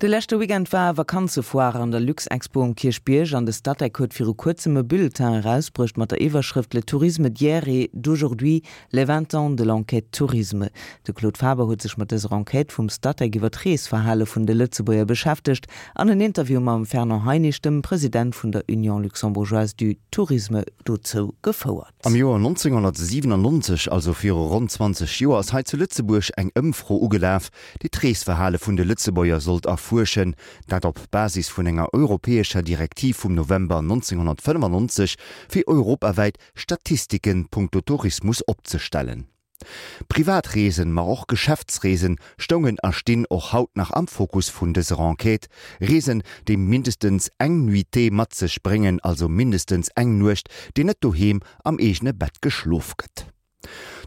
De leschte Weekend war Vakanzefoire an der Luxexpo um Kierchbierg an de Statec huet viru kuerzem e Bulletin erausbruecht mat der Iwwerschrëft Le tourisme d'hier et d'aujourd'hui, les 20 ans de l'enquête tourisme. De Claude Faber huet sech mat dëser Enquête vum Statec iwwer d'Reesverhale vun de Lëtzebuerger beschäftegt an en Interview mam Fernand Heinisch, dem President vun der Union luxembourgeoise du tourisme, dozou gefouert. Am Joer 1997, also viru ronn 20 Joer, ass hei zu Lëtzebuerg eng Ëmfro ugelaf, déi d'Reesverhale vun de Lëtzebuerger sollt erfuerschen, dat op Basis vun enger europäescher Direktiv vum November 1995, fir europawäit Statistiken punkto Tourismus opzestellen. Privatreesen, ma och Geschäftsreesen stoungen a stinn och haut nach am Fokus vun dëser Enquête. Reesen, déi mindestens eng Nuitée mat sech bréngen, also mindestens eng Nuecht, déi net doheem am eegene Bett geschlof gëtt.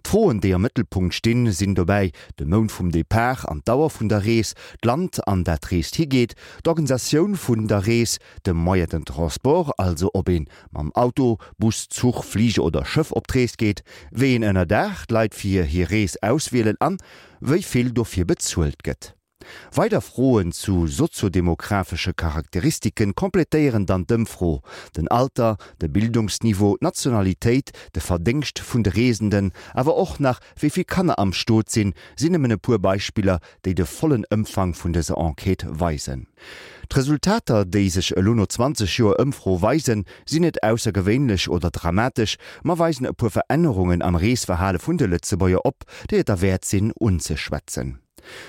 D'Froen, déi am Mëttelpunkt stinn, sinn dobäi de Mount vum Depart an d'Dauer vun der Rees, d'Land, an dat d'Rees higeet, d'Organisatioun vun der Rees, de Moyen de transport, also ob ee mam Auto, Bus, Zuch, Fliger oder Schëff op d'Rees geet, wéi een Ënnerdaach d'Leit fir hir Rees auswielen an wéi vill dofir bezuelt gëtt. Weider Froen zu soziodemographesche Charakteristike completéieren dann d'Ëmfro, den Alter, de Bildungsniveau, d'Nationalitéit, de Verdéngscht vun de Reesenden, awer och nach wéi vill Kanner am Stot sinn, sinn nëmmen e puer Beispiller, déi de vollen Ëmfang vun dëser Enquête weisen. D'Resultater, déi sech elo no 20 Joer Ëmfro weisen, sinn net aussergewéinlech oder dramatesch, ma weisen e puer Verännerungen am Reesverhale vun de Lëtzebuerger op, déi et derwäert sinn unzeschwätzen.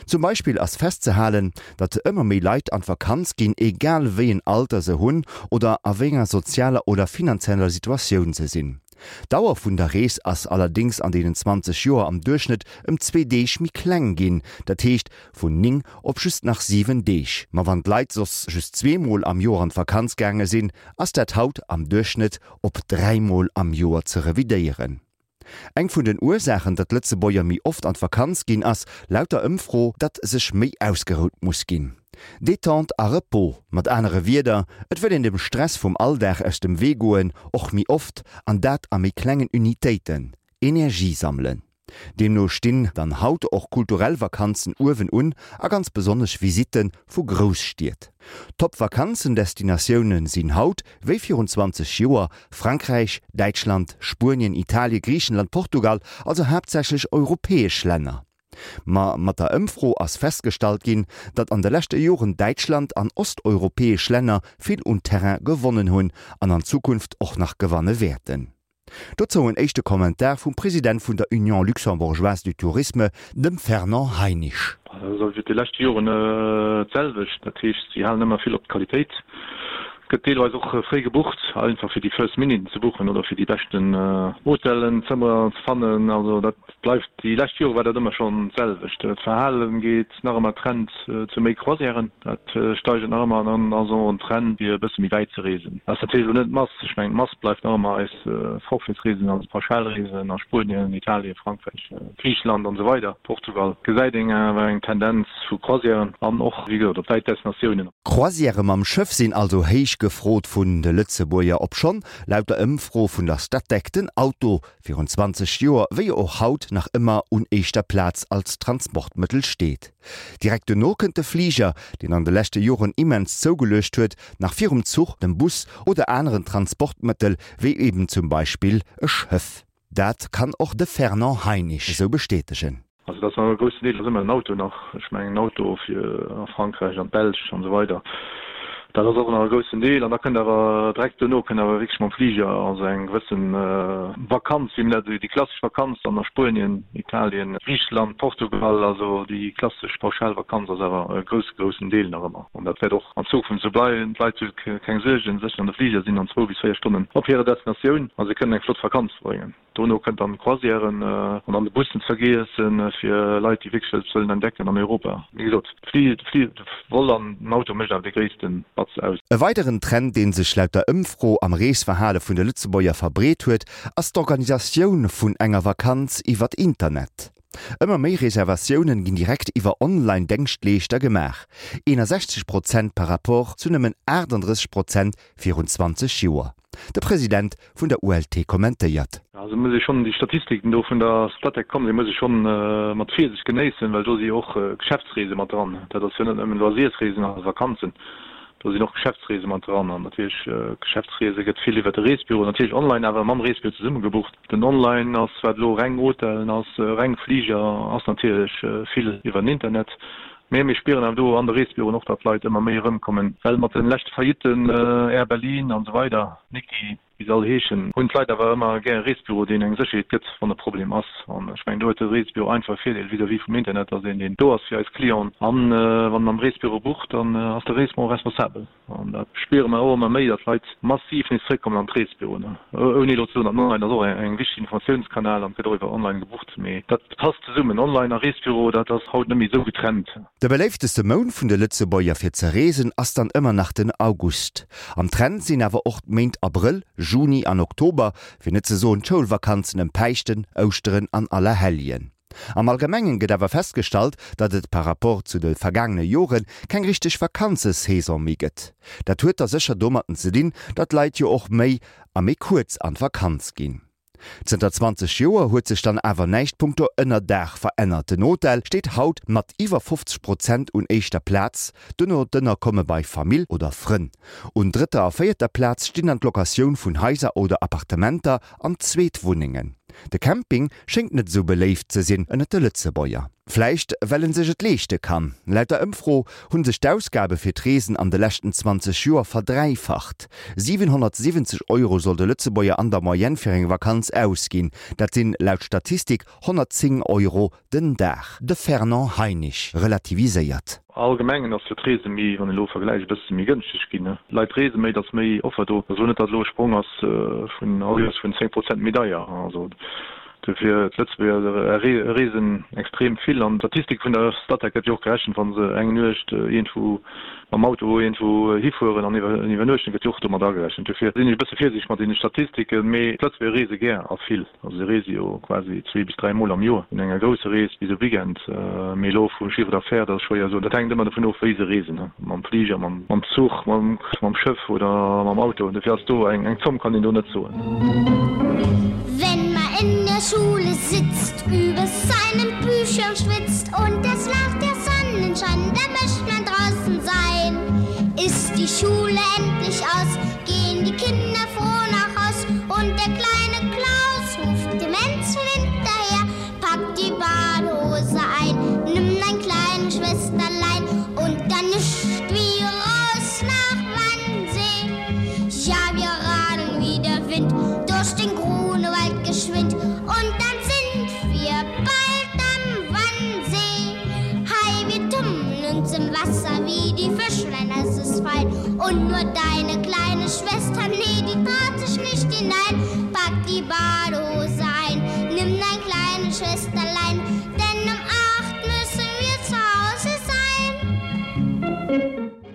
Zum Beispill ass festzehalen, datt ëmmer méi Leit an d'Vakanz ginn, egal wéi en Alter se hunn oder a wéi enger sozialer oder finanzieller Situatioun se sinn. D'Dauer vun der Rees ass allerdéngs an deenen 20 Joer am Duerchschnëtt ëm zwee Deeg méi kleng ginn, dat heescht vun 9 op just nach 7 Deeg. Ma wann d'Leit soss just zweemol am Joer an d'Vakanz gaange sinn, ass dat haut am Duerchschnëtt op dräimol am Joer ze revidéieren. Eng vun den Ursaachen, datt Lëtzebuerger méi oft an d'Vakanz ginn, ass laut der Ëmfro, datt sech méi ausgerout muss ginn. Détente a Repos, mat anere Wierder, et wëll een dem Stress vum Alldag aus dem Wee goen, och méi oft, an dat a méi klengen Unitéiten, Energie sammelen. Deemno stinn dann haut och kulturell Vakanzen uewen un a ganz besonnesch Visitte vu Grousstied. Top-Vakanzendestinatioune sinn haut, wéi virun 20 Joer, Frankräich, Däitschland, Spuenien, Italie, Griichenland, Portugal, also haaptsächlech europäesch Länner. Ma mat der Ëmfro ass festgestallt ginn, datt an de leschte Joren Däitschland an osteuropäesch Länner vill un Terrain gewonnen hunn an an Zukunft och nach gewanne wäerten. Dozou en éischte Kommentar vum President vun der Union luxembourgeoise du tourisme, dem Fernand Heinisch. Dat ass iwwer déi lescht Joren d'selwecht. Dat heescht, si halen ëmmer vill op d'Qualitéit. Et gëtt deelweis och fréi gebucht, einfach fir déi first minute ze buchen oder fir déi beschten Hotellen, Zëmmer ze fannen. Also dat bleift, déi lescht Jore war dat ëmmer schonn d'selwecht. D'Verhale geet nach ëmmer Trend zu méi Croisièren, dat steigert nach ëmmer an dann ass och en Trend fir e bësse méi wäit ze reesen. Dat ass natierlech elo net d'Mass, ech mengen d'Mass bleift nach ëmmer eis Forfaitsreesen, also Pauschalreesen a Spuenien, Italien, Frankräich, Griicheland an esou weider, Portugal, gesäit een awer eng Tendenz vu Croisièren an och wéi gesot op wäit Destinatiounen. Croisièrë mam Schëff sinn also héich gefrot vun de Lëtzebuerger, obschonn laut der Ëmfro vun der Statec den Auto virun 20 Joer wéi och haut nach ëmmer un éischter Plaz als Transportmëttel steet. Direkt dono kënnt de Fliger, deen an de leschte Joren immens zougeluecht huet, nach virum Zuch, dem Bus oder aneren Transportmëttel wéi eben zum Beispill e Schëff. Dat kann och de Fernand Heinisch esou bestätegen. Also dat ass nach e groussen Deel ass ëmmer den Auto nach. Ech mengen en Auto fir a Frankräich, an d'Belsch an esou weider, dat ass och nach e groussen Deel. An da kënnt awer direkt duerno kënnt awer wierklech mam Fliger, also eng gewësse Vakanz, wéi mir dat, déi klassesch Vakanz dann a Spuenien, Italien, Griicheland, Portugal, also déi klassesch Pauschalvakanz ass awer e grousse, groussen Deel nach ëmmer. An dat wäert och an Zukunft esou bleiwen. D'Leit hu keng Suergen, sech an de Fliger, sinn an zwou bis 4 Stonnen op hirer Destinatioun a se kënnen eng flott Vakanz verbréngen. Dono kënnt dann d'Croisièren an dann de Bus net vergiessen fir Leit déi wierklech eppes wëllen entdecken an Europa. Wéi gesot, de Vol an den Auto mécht awer dee gréisste Batz aus. E weideren Trend, dee sech laut der Ëmfro am Reesverhale vun de Lëtzebuerger verbreet huet, ass d'Organisatioun vun enger Vakanz iwwert Internet. Ëmmer méi Reservatiounen ginn direkt iwwer Online-Dengschtleeschter gemaach, 61 Prozent par rapport zu nëmmen 38 Prozent virun 20 Joer. De President vun der ULT kommentéiert. Also muss ee schonn déi Statistiken do vun der Statec kommen, déi muss ee schonn mat Virsicht genéissen, well do si jo och Geschäftsreese mat dran. Dat ass jo net nëmmen Loisiersreesen a Vakanzen, do sinn och Geschäftsreese mat dran. An natierlech Geschäftsreese gëtt vill iwwer de Reesbüro, natierlech online, awer mam Reesbüro zesumme gebucht. Den Online ass, wat elo reng Hotellen ass, reng Fliger ass, natierlech vill iwwer den Internet. Mee mir spieren awer do an de Reesbüroen och, datt d'Leit ëmmer méi erëmkommen, well mat de leschte Faillitten, Air Berlin an esou weider, Niki, wéi se all heeschen, hunn d'Leit awer ëmmer gär e Reesbüro, deen eng Sécherheet gëtt, wann e Problem ass. An ech mengen, do huet de Reesbüro einfach e Virdeel vis-à-vis vum Internet, ass een, deen do ass fir eis Clienten. An wann en am Reesbüro bucht, dann ass de Reesbüro responsabel. An dat spiere mer och ëmmer méi, datt d'Leit massiv nees zréckkommen an d'Reesbüroen. Ouni elo ze soen, datt online ass och eng wichteg Informatiounskanal an et gëtt och iwwer online gebucht, mee dat passt zesummen. Online a Reesbüro, dat ass haut net méi esou getrennt. De beléifteste Mount vun de Lëtzebuerger fir ze reesen ass dann ëmmer nach den August. Am Trend sinn awer och d'Méint Abrëll, Juni an Oktober, fir net ze soen d'Schoulvakanzen ëm Päischten, Ouschteren an Allerhelljen. Am Allgemengen gëtt awer festgestallt, datt et par rapport zu de vergaangene Jore keng richteg Vakanzesaison méi gëtt. Dat huet da sécher domatten ze dinn, datt d'Leit jo och méi a méi kuerz an d'Vakanz ginn. Zënter 20 Joer huet sech dann awer näischt punkto Ënnerdaach verännert. Den Hotel steet haut mat iwwer 50 Prozent un éischter Plaz, duerno d'Ënnerkomme bei Famill oder Frënn. Un drëtter a véierter Plaz stinn dann d'Locatioun vun Haiser oder Appartementer an Zweetwunnengen. De Camping schéngt net esou beléift ze sinn ënnert de Lëtzebuerger. Vläicht well en sech et leeschte kann. Laut der Ëmfro hunn sech d'Ausgabe fir d'Reesen an de leschten 20 Joer verdräifacht. 770 Euro soll de Lëtzebuerger an der Moyenne fir eng Vakanz ausginn. Dat sinn laut Statistik 110 Euro den Dag. De Fernand Heinisch relativiséiert. Allgemengen ass jo d'Reese méi, wann een elo vergläicht, e bësse méi gënschteg ginn. D'Leit reese méi, et ass méi Offer do. Ech soen net, datt elo e Sprong ass vun all Joers vun 10 Prozent méi deier. Also dofir, d'Lëtzebuerger reesen extrem vill an d'Statistik vun der Statec gëtt jo och gerechent, wa se eng Nuecht iergendwou mam Auto iergendwou hifueren an iwwernuechten, gëtt jo och domat agerechent. Dofir sinn ech e bësse virsiichteg mat deene Statistiken, mee d'Lëtzebuerger reese gär a vill. Also se reese jo quasi zwee bis dräi Mol am Joer, vun enger grousser Rees bis e Weekend. Mee elo vum Chiffre d'affaires, dat ass schwéier soen. Dat hänkt ëmmer dovun of, wéi se reesen, mam Fliger, mam Zuch, mam Schëff oder mam Auto. Dofir ass do eng Zomm kann een do net soen. Wenn man in der Schule sitzt, über seinen Büchern schwitzt und es lacht der Sonnenschein, da möcht man draußen sein. Ist die Schule endlich aus, gehen die Kinder froh nach Haus und der kleine Klaus ruft dem Menschen hinterher, packt die Badehose ein, nimm dein kleine Schwesterlein und dann nischt wie raus nach Wannsee. Ja, wir radeln wie der Wind durch den Grunewald geschwind und dann sind wir bald am Wannsee. Hei, wir tummeln uns im Wasser wie die Fischlein, es ist fein. Und nur deine kleine Schwester, nee, die traut sich nicht hinein. Pack die Badehose ein, nimm dein kleine Schwesterlein, denn um acht müssen wir zu Hause sein.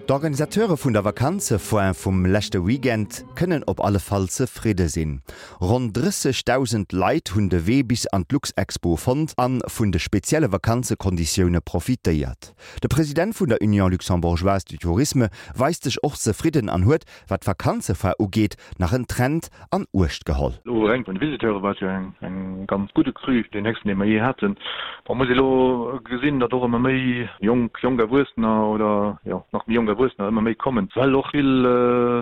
D'Organisateure vun der Vakanzefoire vum leschte Weekend kënnen op alle Fall zefridde sinn. Ronn 30.000 Leit hunn de Wee bis an d'Luxexpo fonnt a vun de spezielle Vakanzekonditioune profitéiert. De President vun der Union Luxembourgeoise du Tourisme weist sech och zefridden an huet, wat d'Vakanzefoire ugeet, nach en Trend an Uecht geholl. Elo reng vun de Visiteure war et jo eng ganz gudde Cru, deen héchsten, dee mer jee haten. Bon, muss ee elo gesinn, datt och ëmmer méi jonk, jonk Erwuessener oder jo nach méi jonk Erwuessener ëmmer méi kommen, well och vill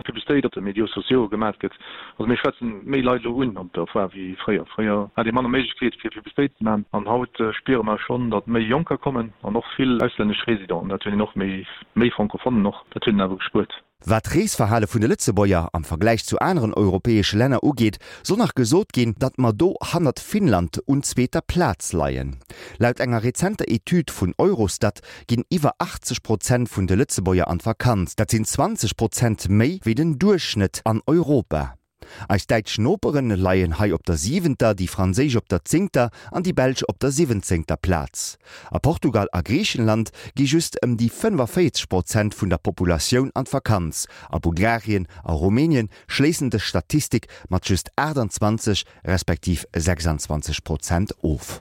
Publicitéit op de Médiaux sociaux gemat gëtt. Also mir schwätzen méi Leit elo un op der Foire wéi fréier. Fréier hat ee manner Méiglechkeet fir Publicitéit ze maachen an haut spiere mer schonn, datt méi Jonker kommen an och vill auslännesch Residenten. Dat hunn een och méi, méi Francophonnen och, dat huet een awer gespuert. Wat d'Reesverhale vun de Lëtzebuerger am Vergläich zu aneren europäesche Länner ugeet, soll nach gesot ginn, datt mer do hannert Finnland un zweeter Plaz leien. Laut enger rezenter Etüd vun Eurostat ginn iwwer 80 Prozent vun de Lëtzebuerger an d'Vakanz. Dat sinn 20 Prozent méi wéi den Duerchschnëtt an Europa. Eis däitsch Noperen leien hei op der siwenter, déi franséisch op der zéngter an déi belsch op der siwwenzéngter Plaz. A Portugal a Griichenland gi just ëm déi 45 Prozent vun der Populatioun an d'Vakanz. A Bulgarien a Rumänien schléissen dës Statistik mat just 28 respektiv 26 Prozent of.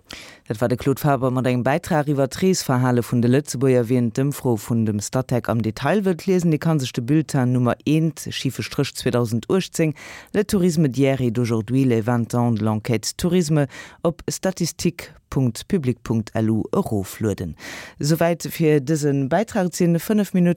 Dat war de Claude Faber mat engem Bäitrag iwwer d'Reesverhale vun de Lëtzebuerger. Wien d'Ëmfro vun dem Statec am Detail wëllt liesen, dee ka sech de Bulletin Nummer eent, schife Stréch 2018, Le tourisme d'hier et d'aujourd'hui, les 20 ans de l'enquête tourisme op statistique.public.lu eroflueden. Souwäit fir dëse Bäitrag. Et sinn 5 Minutten.